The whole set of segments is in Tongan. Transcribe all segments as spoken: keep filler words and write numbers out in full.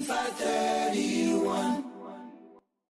five thirty-one.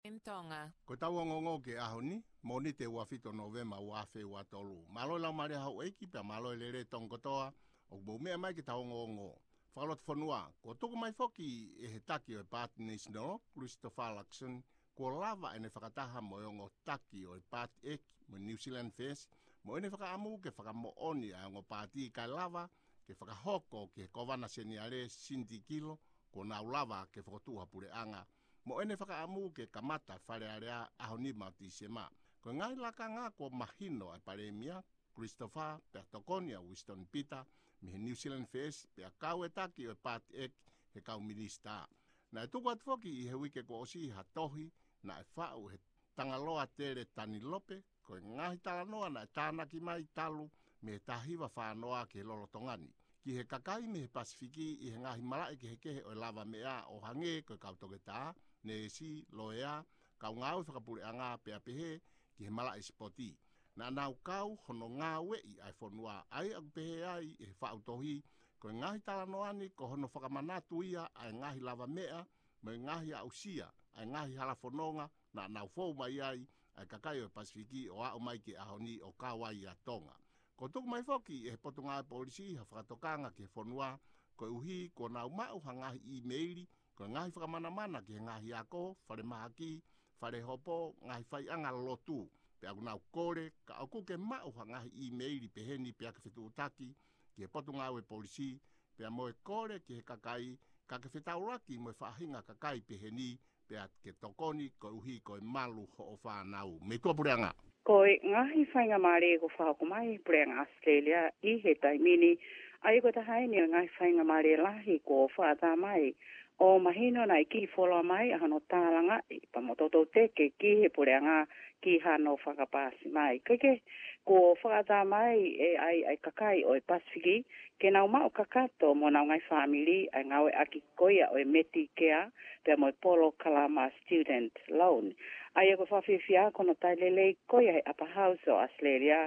In Tonga. Ko ʻetau ongoongo ki he ʻaho ni, Mōnite ua fitu Nōvema ua afe ua tolu. Mālō e laumālie houʻeiki pea mālō e lelei Tonga kotoa ʻoku mou meʻa mai ki heʻetau ongoongo. Fakalotofonua, kuo tuku mai foki ʻe he taki ʻo e Paati National, Christopher Luxon, kuo lava ʻene fakataha mo e ongo taki ʻo e Paati ʻEiki mo e New Zealand First, mo ʻene fakaʻamu ke fakamoʻoni ʻa e ongo paati kae lava ke fakahoko ki he Kōvana Seniale Cindy Kilo, kuo nau lava ke fokotuʻu ha puleʻanga, mo ʻene fakaʻamu ke kamata Fale Alea ʻaho nima ʻo Tīsema. Ko e ngaahi lakanga kuo mahino ʻa e Palēmia, Christopher, pea tokoni ʻa Winston Peter mei he New Zealand First, pea kau e taki ʻo e Paati ʻEiki he kau minisitā. Naʻe tuku atu foki ʻi he uike kuo ʻosi ha tohi naʻe faʻu ʻe he Tangaloa Tele Tanilope, ko e ngaahi talanoa naʻe tānaki mai talu mei he taha hiva fā noa ki he lolotonga ni, ki he kakai mei he Pasifiki ʻi he ngaahi malaʻe kehekehe ʻo e lava meʻa ʻo hangē ko e kau toketā, neesi, loea, kau ngāue fakapuleʻanga pea pehē ki he malaʻe sipoti. Naʻa nau kau hono ngāueʻi ʻa e fonua, ʻa ia ʻoku pehē ai ʻe he faʻu tohi, ko e ngaahi talanoa ni ko hono fakamanatu ia ʻa e ngaahi lava meʻa mo e ngaahi aʻusia ʻa e ngaahi hala fononga naʻa nau fou mai ai ʻa e kakai ʻo e Pasifiki ʻo aʻu mai ki he ʻaho ni ʻo kau ai ʻa Tonga. Kuo tuku mai foki ʻe he Potungāue Polisi ha fakatokanga ki he fonua, koeʻuhi kuo nau maʻu ha ngaahi ʻīmeili, ko e ngaahi fakamanamana ki he ngaahi ako, falemahaki, falehopo, ngaahi faiʻanga lotu. Pea ʻoku nau kole, ka ʻoku ke maʻu ha ngaahi ʻīmeili peheni pea ke fetuʻutaki ki he Potungāue Polisi, pea mo e kole ki he kakai, ka ke fetaulaki mo e faʻahinga kakai peheni, pea ke tokoni koeʻuhi ko e malu hoʻo fānau. Mei tuʻa puleʻanga. Ko e ngaahi faingamālie kuo fakahoko mai ʻe he Puleʻanga ʻAositelēlia ʻi he taimi ni, ʻa ia ko e taha eni ʻo e ngaahi faingamālie lahi kuo fakaʻatā mai ʻo mahino naʻe kiʻi fuoloa mai ʻa hono tālangaʻi pea mo toutou teke ki he puleʻanga ki hano fakapaasi mai. Kae kehe, kuo fakaʻatā mai ʻe ʻai ʻa e kakai ʻo e Pasifiki ke nau maʻu kakato mo honau ngaahi fāmili ʻa e ngāueʻaki ko ia ʻo e Medicare pea mo e polokalama student loan. ʻA ia ko e fakafiefia ko hono tali lelei ko ia ʻe he Upper House ʻo ʻAositelēlia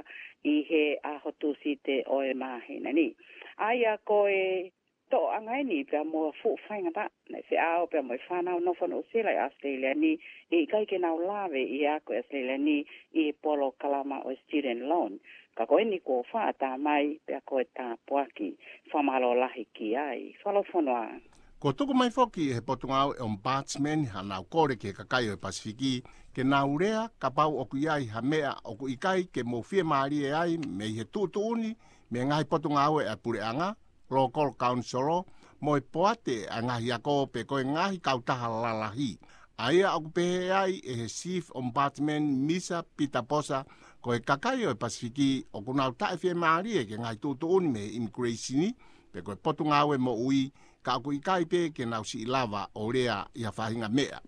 ʻi he ʻaho Tūsite ʻo e māhina ni. ʻA ia ko e toʻoʻanga eni pea mo e fuʻu faingataʻa naʻe feʻao pea mo e fānau nofo Nuʻusila ʻi ʻAositelēlia ni, ʻe ʻikai ke nau lave ʻi he ako ʻi ʻAositelēlia ni ʻi he polokalama ʻo e student loan. Ka ko eni kuo fakaʻatā mai pea ko e tāpuaki, fakamālō lahi ki ai. Fakalotofonua. Kuo tuku mai foki ʻe he Potungāue Ombudsman hanau kole ki he kakai ʻo e Pasifiki ke nau lea kapau ʻoku ʻi ai ha meʻa ʻoku ʻikai ke mou fiemālie ai mei he tuʻutuʻuni mei he ngaahi potungāue ʻa e puleʻanga, local council, mo e poate ʻa e ngaahi ako pe ko e ngaahi kautaha lalahi. ʻA ia ʻoku pehē ai ʻe he Chief Ombudsman Misa Pita Posa, ko e kakai ʻo e Pasifiki ʻoku nau taʻefiemālie ki he ngaahi tuʻutuʻuni mei he immigration pe ko e Potungāue Moʻui, ka ʻoku ʻikai pē ke nau siʻi lava ʻo lea ʻi ha faʻahinga meʻa.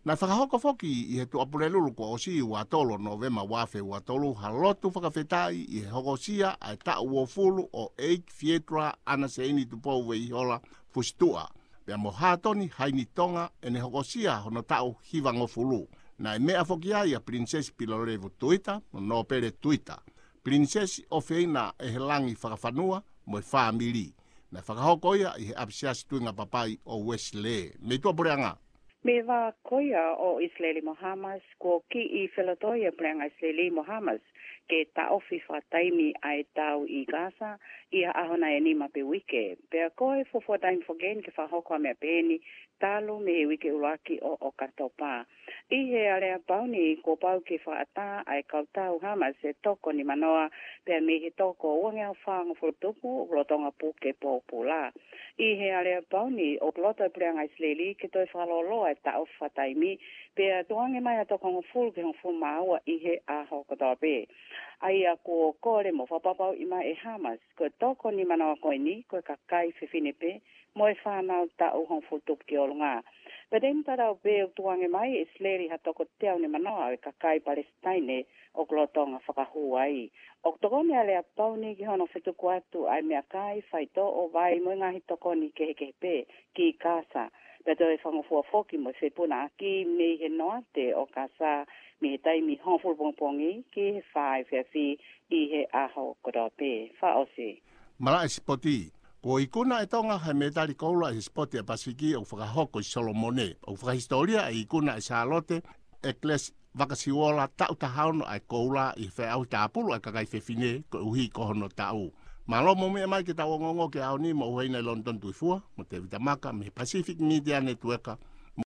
Naʻe fakahoko foki ʻi he Tuʻapulelulu kuo ʻosi, ua tolu Nōvema ua afe ua tolu, ha lotu fakafetaʻi ʻi he hokosia ʻa e taʻu uofulu ʻo ʻEiki Fietura ʻAna Seini Tupou Veihola Fusituʻa, pea mo Hātoni Haini Tonga ʻene hokosia hono taʻu hivangofulu. Naʻe meʻa foki ai ʻa Pilinisesi Pilolevu Tuita mo Nōpele Tuita, Pilinisesi ʻofeina ʻe he Langi Fakafanua mo e fāmili. Naʻe fakahoko ia ʻi he ʻapisiasi Tuingapapai ʻo Uesilē. Mei tuʻa puleʻanga. Mei he vā ko ia ʻo ʻIsileli mo Hamas, kuo kiʻi felotoi ʻa e puleʻanga ʻIsileli mo Hamas ke taʻofi fakataimi ʻa e tau ʻi Gaza ʻi ha ʻaho nai ʻe nima pe uike. Pea ko e fuofua taimi foki eni ke fakahoko ʻa e meʻa peheni talu mei he uike ʻuluaki ʻo ʻOkatopa. ʻI he aleapau ni kuo pau ke fakaʻatā ʻa e kau tau Hamas ʻe toko nimanoa, pea mei he toko uangeau fāngofulu tupu ʻoku lolotonga puke pōpula. ʻI he aleapau ni ʻoku loto e puleʻanga ʻIsileli ke toe fakalōloa e taʻofi fakataimi, pea tukuange mai ha toko hongofulu ki he hongofulu mā ua ʻi he ʻaho kotoa pē. ʻA ia kuo kole mo fakapapauʻi mai ʻe Hamas ko e toko nimanoa ko eni ko e kakai fefine pē mo e fānau taʻu hongofulu tupu ki ʻolunga. Pea taimi tatau pē ʻoku tukuange mai ʻe ʻIsileli ha toko teau nimanoa ʻo e kakai Palesitaine ʻoku lolotonga fakahū ai. ʻOku tokoni ʻa e aleapau ni ki hono fetuku atu ʻa e meʻakai, faitoʻo, vai mo e ngaahi tokoni kehekehe pē ki Gaza. Pea toe fakangofua foki mo e fepunaʻaki mei he noate ʻo Gaza mei he taimi hongofulu pongipongi ki he fā efiafi ʻi he ʻaho kotoa pē. Fakaʻosi. Malaʻe sipoti. Kuo ikuna ʻe Tonga ha mētali koula ʻi he sipoti ʻa e Pasifiki ʻoku fakahoko ʻi Solomone. ʻOku fakahisitōlia ʻa e ikuna ʻe Sālote ʻEkilesi Vakasiuola taʻu taha ono ʻa e koula ʻi he feʻauhi tāpulu ʻa e kakai fefine koeʻuhi ko hono taʻu. Mālō mo meʻa mai ke tau ongoongo ki he ʻaho ni mo ʻUhena ʻi Lonitoni Tuʻifua, mo Tēvita Maka, mei he Pacific Media Network,